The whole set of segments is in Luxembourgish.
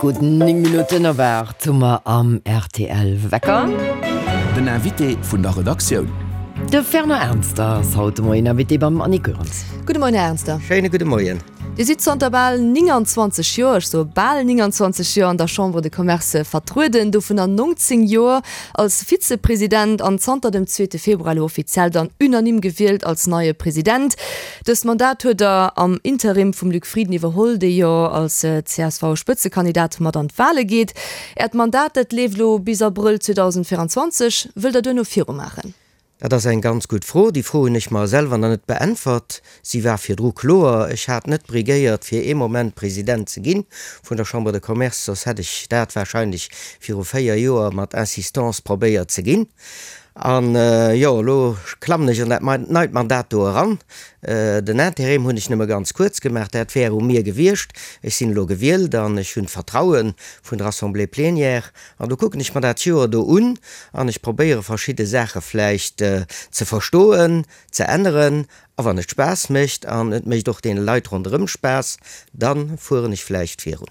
Gutt 9 Minutten op 8 hu mer am rtl Wecker. Den Invité vun der Redaktioun. De Fernand Ernster ass haut de Moien Invité beim Annick Goerens. Gudde Moien, Här Ernster. Schéine gudde Moien. Dir sidd zanter bal 29 Joer, ech soe bal 29 Joer, an der Chambre de Commerce vertrueden, dovunner 19 Joer als Vizepresident an zanter dem zweete Februar elo offiziell dann unanime gewielt als neie President. Dëst Mandat huet Der am Interim vum Luc Frieden iwwerholl, dee jo als CSV-Spëtzekandidat mat an d'Wale geet. Äert Mandat, dat leeft elo bis Abrëll 2024. Wëllt Der duerno virumaachen? Dat ass eng ganz gutt Fro. Déi Fro hunn ech mer selwer nach net beäntwert. Si war virdru kloer. Ech hat net briguéiert, fir ee Moment President ze gi vun der Chambre de Commerce, soss hätt ech dat wahrscheinlech viru 4 Joer mat Insistance probéiert ze ginn. An, jo, elo klammen ech an dat neit Mandat do eran. Den Interim hunn ech nëmme ganz kuerz gemaach. Dat wär u mir gewiescht. Ech sinn elo gewielt an ech hunn d'Vertraue vun der Assemblée plénière. An do kucken ech mer dat Joer do un an ech probéiere verschidde Saache vläicht ze verstoen, ze änneren. A wann et Spaass mécht an et mécht och deene Leit ronderëm Spaass, da fueren ech vläicht virun.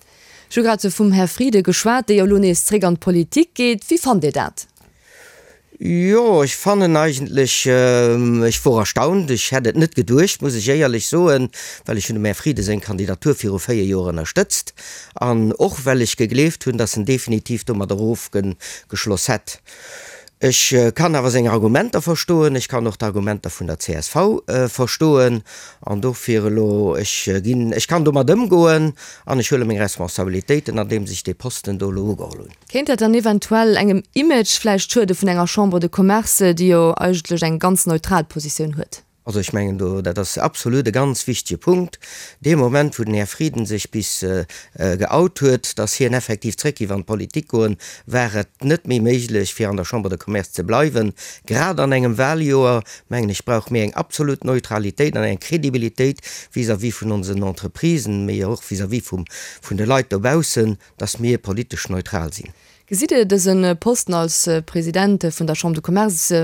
Ech hu grad vum Här Frieden geschwat, dee jo elo nees zréck an d'Politik geet. Wéi fannt Dir dat? Jo, ech fannen eigentlech, ech wor erstaunt, ech hätt et net geduecht, muss ech éierlech soen, well ech hunn dem Här Frieden seng Kandidatur viru 4 Joer ënnerstëtzt an och well ech gegleeft hunn, datt en definitiv domadder ofgeschloss hätt. Ech kann awer seng Argumenter verstoen, ech kann och d'Argumenter vun der csv verstoen an dofir elo, ech ginn, ech kann domat ëmgoen an ech huele meng Responsabilitéiten, andeems ech dee Posten do elo ugeholl hunn. Kéint dat dann eventuell engem Image vläicht schuede vun enger Chambre de Commerce, déi jo eigentlech eng ganz neutral Positioun huet? Also ech mengen do, dat ass absolut e ganz wichtege Punkt. Dee Moment, wou den Här Frieden sech bis geout huet, datt hien effektiv zréck géif an d'Politik goen, war et net méi méiglech, fir an der Chambre de Commerce ze bleiwen. Grad an engem Wahljoer, mengen ech, brauche mir eng absolut Neutralitéit an eng Kredibilitéit vis-à-vis vun onsen Entreprisen, mee och vis-à-vis vun de Leit dobaussen, dass mir politesch neutral sinn. Gesitt Dir dëse Posten als President vun der Chambre de Commerce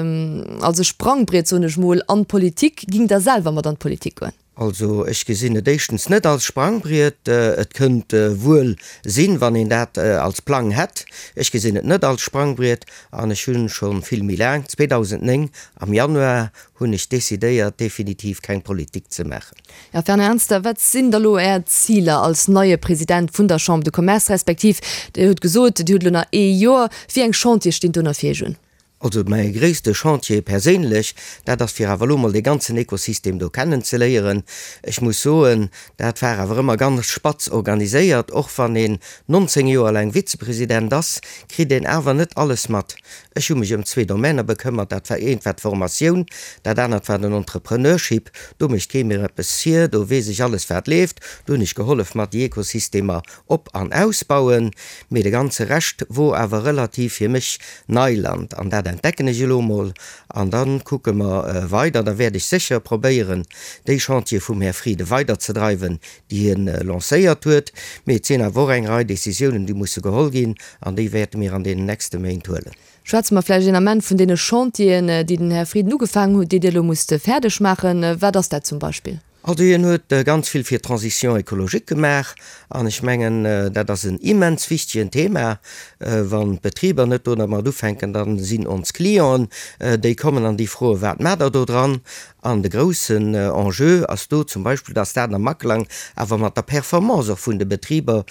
als e Sprangbriet, soen ech mol, an d'Politik? Gingt Der selwer mat an d'Politik goen? Also ech gesinn et éischtens net als Sprangbriet. Et kënnt wuel sinn, wann een dat als Plang hätt. Ech gesinn et net als Sprangbriet an ech hu scho vill méi laang, 2009 am Januar, hunn ech decidéiert, definitiv keng Politik ze maachen. Här Fernand Ernster, wat sinn da lo Är Ziler als neie President vun der Chambre de Commerce, respektiv Dir hutt gesot, Dir hutt elo nach ee Joer, wéi eng Chantiere stinn do nach fir Iech un? Also mäi gréisste Chantier perséinlech, dat ass fir awer elo mol dee ganzen Ekosystem do kennen ze léieren. Ech muss soen, dat war awer ëmmer ganz spatz organiséiert. Och wann een 19 Joer laang Vizepresident ass, kritt een awer net alles mat. Ech hu mech ëm zwee Domainer bekëmmert, dat war eent war d'Formatioun, dat anert war den Entrepreneurship. Do mécht kee mir eppes vir, do weess ech alles wat leeft, do hunn ech gehollef mat déi Ekosystemer op an ausbauen, mee de ganze Rescht wor awer relativ fir mech Neiland an dat entdecken ech elo mol an da kucke mer weider. Da wäert ech sécher probéieren déi Chantiere vum Här Frieden weiderzedreiwen, déi hien lancéiert huet, mee et sinn awer och eng Rei Décisiounen déi musse geholl ginn an déi wäerte mir an deenen nächste Méint huelen. Schwätze mer vläicht een Ament vun deene Chantieren, déi den Här Frieden ugefaangen huet, déi Dir elo musst fäerdeg maachen. Wat ass dat zum Beispill? Also hien huet ganz vill fir d'Transition écologique gemaach an ech mengen, dat ass en immens wichtegen Thema. Wann d'Betriber net domat ufänken, da sinn ons Clienten, déi kommen an déi froen, Wat maacht Der do dran? An de groussen Enjeu ass do zum Beispill, dass dat am Aklang awer mat der Performance och vun de Betriber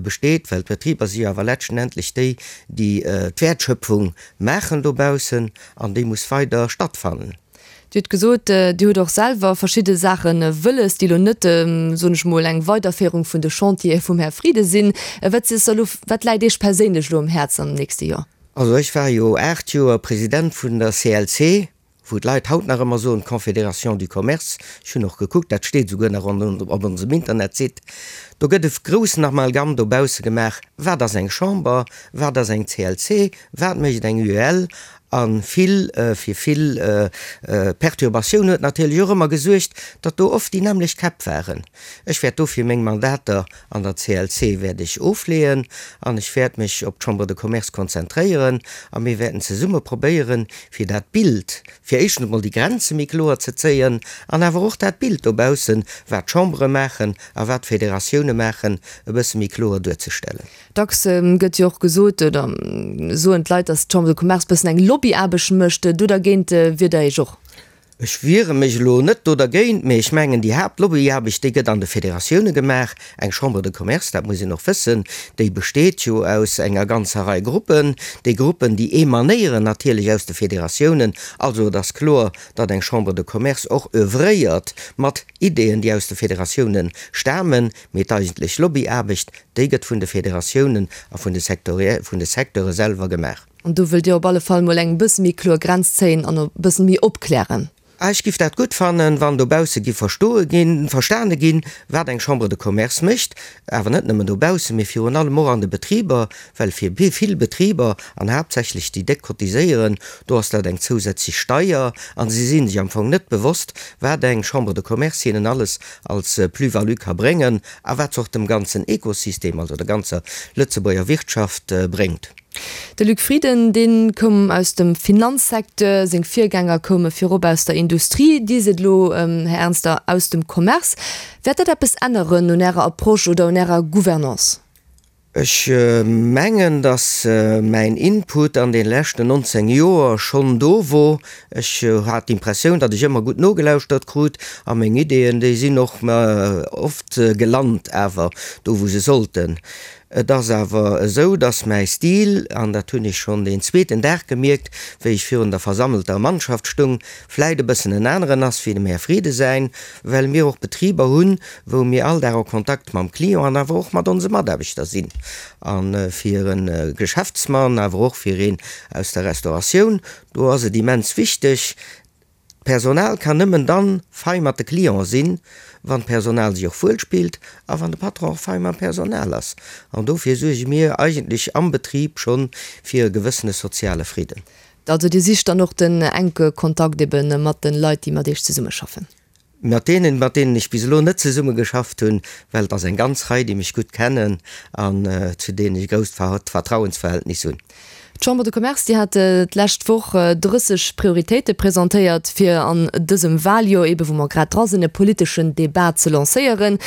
besteet, well d'Betriber si jo awer letztendlech déi, déi d'Wäertschöpfung maachen dobaussen, an déi muss weider stattfannen. Dir hutt gesot, Dir hutt och selwer verschidde Saache wëlles, déi elo net, soen ech mol, eng Weiderféierung vun de Chantiere vum Här Frieden sinn. Wat ass elo, wat läit Iech perséinlech elo um Häerz am nächste Joer? Also ech war jo 8 Joer President vun der CLC, wou d'Leit haut nach ëmmer soen, d'Confédération du Commerce, ech hunn och gekuckt, dat steet esouguer nach op onsem Internetsite, do gëtt e groussen Amalgam dobausse gemaach, wat ass eng Chamber, wat ass eng CLC, wat mécht eng UEL, a vill, fir vill Perturbatioun huet natierlech och ëmmer gesuergt, datt do oft déi nämmlecht Käpp waren. Ech wäert dofir meng Mandater an der CLC wäert ech ofleeën an ech wäert mech op d'Chambre de Commerce konzentréieren a mir wäerten zesumme probéieren, fir dat Bild, fir éischtens emol déi Grenze méi kloer ze zéien an awer och dat Bild dobaussen, wat d'Chambere maachen a wat d'Federatioune. Federatioune maachen, e bësse méi kloer duerzestellen. Dacks gëtt jo och gesot, oder soen d'Leit, datt d'Chambre de Commerce bëssen eng Lobbyaarbecht mécht. Do dergéint wiert Der Iech och? Ech wiere mech elo net do dergéint, mee ech mengen, déi Haaptlobbyarbecht, déi gëtt an de Federatioune gemaach. Eng Chambre de Commerce, dat muss een och wëssen, déi besteet jo aus enger ganzer Rei Gruppen. Déi Gruppen, déi emanéieren natierlech aus de Federatiounen. Also et ass kloer, datt eng Chambre de Commerce och oeuvréiert mat Ideeën, déi aus de Federatioune stamen, mee d'eigentlech Lobbyaarbecht, déi gëtt vun de Federatiounen a vun de Secteure selwer gemaach. An do wëllt Dir op alle Fall mol eng bësse méi kloer Grenz zéien an e bëssen méi opklären. Ah, ech giff dat gutt fannen, wann dobausse giff verstoe ginn, verstane ginn, wat eng Chambre de Commerce mécht. Awer net nëmmen dobaussen, mee virun allem och an de Betriber, well fir vill Betriber, an haaptsächlech déi déck cotiséieren, do ass dat eng zousätzlech Steier an si si sech am Fong net bewosst, wat eng Chambre de Commerce hinnen alles als Plus-value ka bréngen a wat se och dem ganzen Ekosystem, also der ganzer Lëtzebuerger Wirtschaft bréngt. De Luc Frieden, dee koum aus dem Finanzsecteur, seng Virgänger koume virop aus der Industrie, Dir sidd elo, Här Ernster, aus dem Commerce. Wäert dat eppes änneren un Ärer Approche oder un Ärer Gouvernance? Ech mengen, datt mäin Input an de leschten 19 Joer schonn do wor. Ech hat d'Impressioun, datt ech ëmmer gutt nogelauschtert krut a meng Ideeën, déi sinn och oft gelant awer do wou se sollten. Et ass awer esou, dass mäi Stil, an dat hunn ech schonn deen zweeten Dag gemierkt, wéi ech virun der versammelter Mannschaft stung, vläit e bëssen en aneren ass wéi dem Här Frieden säin, well mir och Betriber hunn, wou mir all Dag en Kontakt mam Client an awer och mat onse Mataarbechter sinn. A fir e Geschäftsmann, awer och fir een aus der Restauratioun, do ass et immens wichteg, D'Personal kann nëmmen dann fei mat de Clienten sinn, wann d'Personal sech och wuel spillt a wann de Patron och fei mam Personal ass. An dofir suerge mir eigentlech am Betrib schonn fir e gewëssene soziale Fridden. Also Dir sicht dann och den enke Kontakt eben mat den Leit, déi mat Iech zesummeschaffen? Mat deenen, mat deenen ech bis elo net zesummegeschafft hunn, well et ass eng ganz Rei, déi mech gutt kennen an zu deenen ech e grousst Vertrauensverhältnis hunn. D'Chambre de Commerce, déi hat d'lescht Woch 30 Prioritéite presentéiert, fir an dësem Waljoer, eebe wou mer grad dra sinn, e politeschen Debat ze lancéieren.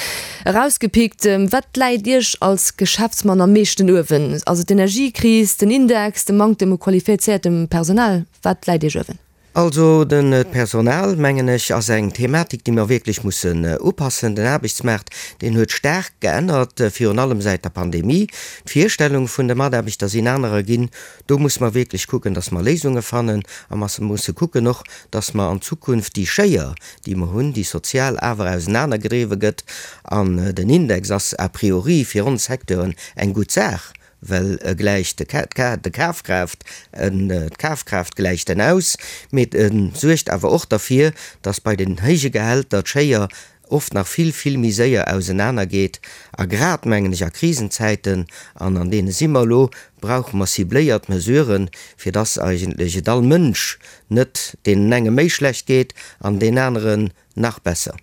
Erausgepickt, Wat läit Iech als Geschäftsmann am meeschten uewen? Ass et d'Energiekris, den Index, de Manktem u qualifizéiertem Personal? Wat läit Iech uewen? Also den Personal, mengen ech, ass eng Thematik, déi mer wierklech mussen upassen. Den Aarbechtsmaart, deen huet staark geännert, virun allem säit der Pandemie. D'Virstellung vun de Mataarbechter sinn anerer ginn. Do musse mer wierklech kucken, dass mer Léisunge fannen. A mer musse kucken och, dass mer an Zukunft déi Schéier, déi mer hunn, déi sozial awer ausenanergedriwwe gëtt, an den Index ass a priori fir ons Secteuren eng gutt Saach, well e gläicht de Kafkraaft, d'Kafkraaft gläicht en aus, mee e suergt awer och derfir, datt bei den héije Gehälter d'Schéier oft nach vill, vill méi séier ausenaner geet. A grad, mengen ech, a Krisenzäiten, an an deene si mer elo, brauche mer cibléiert Mesuren, fir datt eigentlech et all Mënsch net deenen enge méi schlecht geet an deen aneren Nach besser.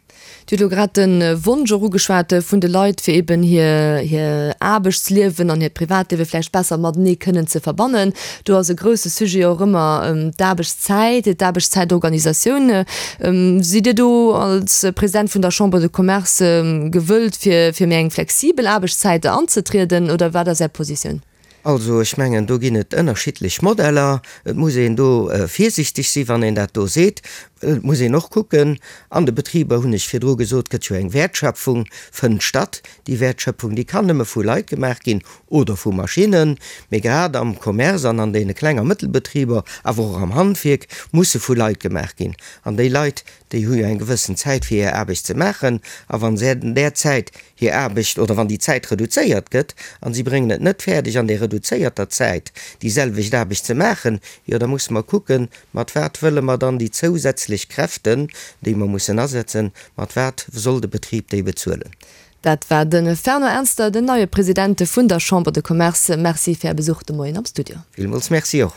Dir hutt elo grad de Wonsch och ugeschwat vun de Leit, fir eben hir hir Aarbechtsliewen an hiert Privatliewe vläicht besser matenee kënnen ze verbannen. Do ass e grousse Sujet och ëmmer d'Aarbechtszäit, d'Aarbechtszäitorganisatioun. Sidd Dir do als President vun der Chambre de Commerce gewëllt, fir fir méi eng flexibel Aarbechtszäit anzetrieden, oder wat ass Är Positioun? Also ech mengen, do ginn et ënnerschiddlech Modeller. Et muss een do virsichteg sinn, wann een dat do seet. Et muss een och kucken, an de Betriber, hunn ech virdru gesot, gëtt jo eng Wäertschöpfung, fënnt statt. Déi Wäertschöpfung, déi kann nëmme vu Leit gemaach ginn oder vu Maschinnen. Mee grad am Commerce an an deene Kleng a Mëttelbetriber, awer och am Handwierk, musse vu Leit gemaach ginn. An déi Leit, déi hu jo eng gewëssen Zäit, fir hir Aarbecht ze maachen. A wa se an där Zäit hir Aarbecht oder wann déi Zäit reduzéiert gëtt an si bréngen et net fäerdeg an där reduzéierter Zäit déi selwecht Aarbecht ze maachen, jo da musse mer kucken, mat wat wëlle mer dann déi zousätzlech Kräften, déi mer mussen asetzen, mat wat soll de Betrib déi bezuelen. Dat war de Fernand Ernster, den neie President vun der Chambre de Commerce. Merci fir Är Besuch de Moien am Studio. Villmools Merci och.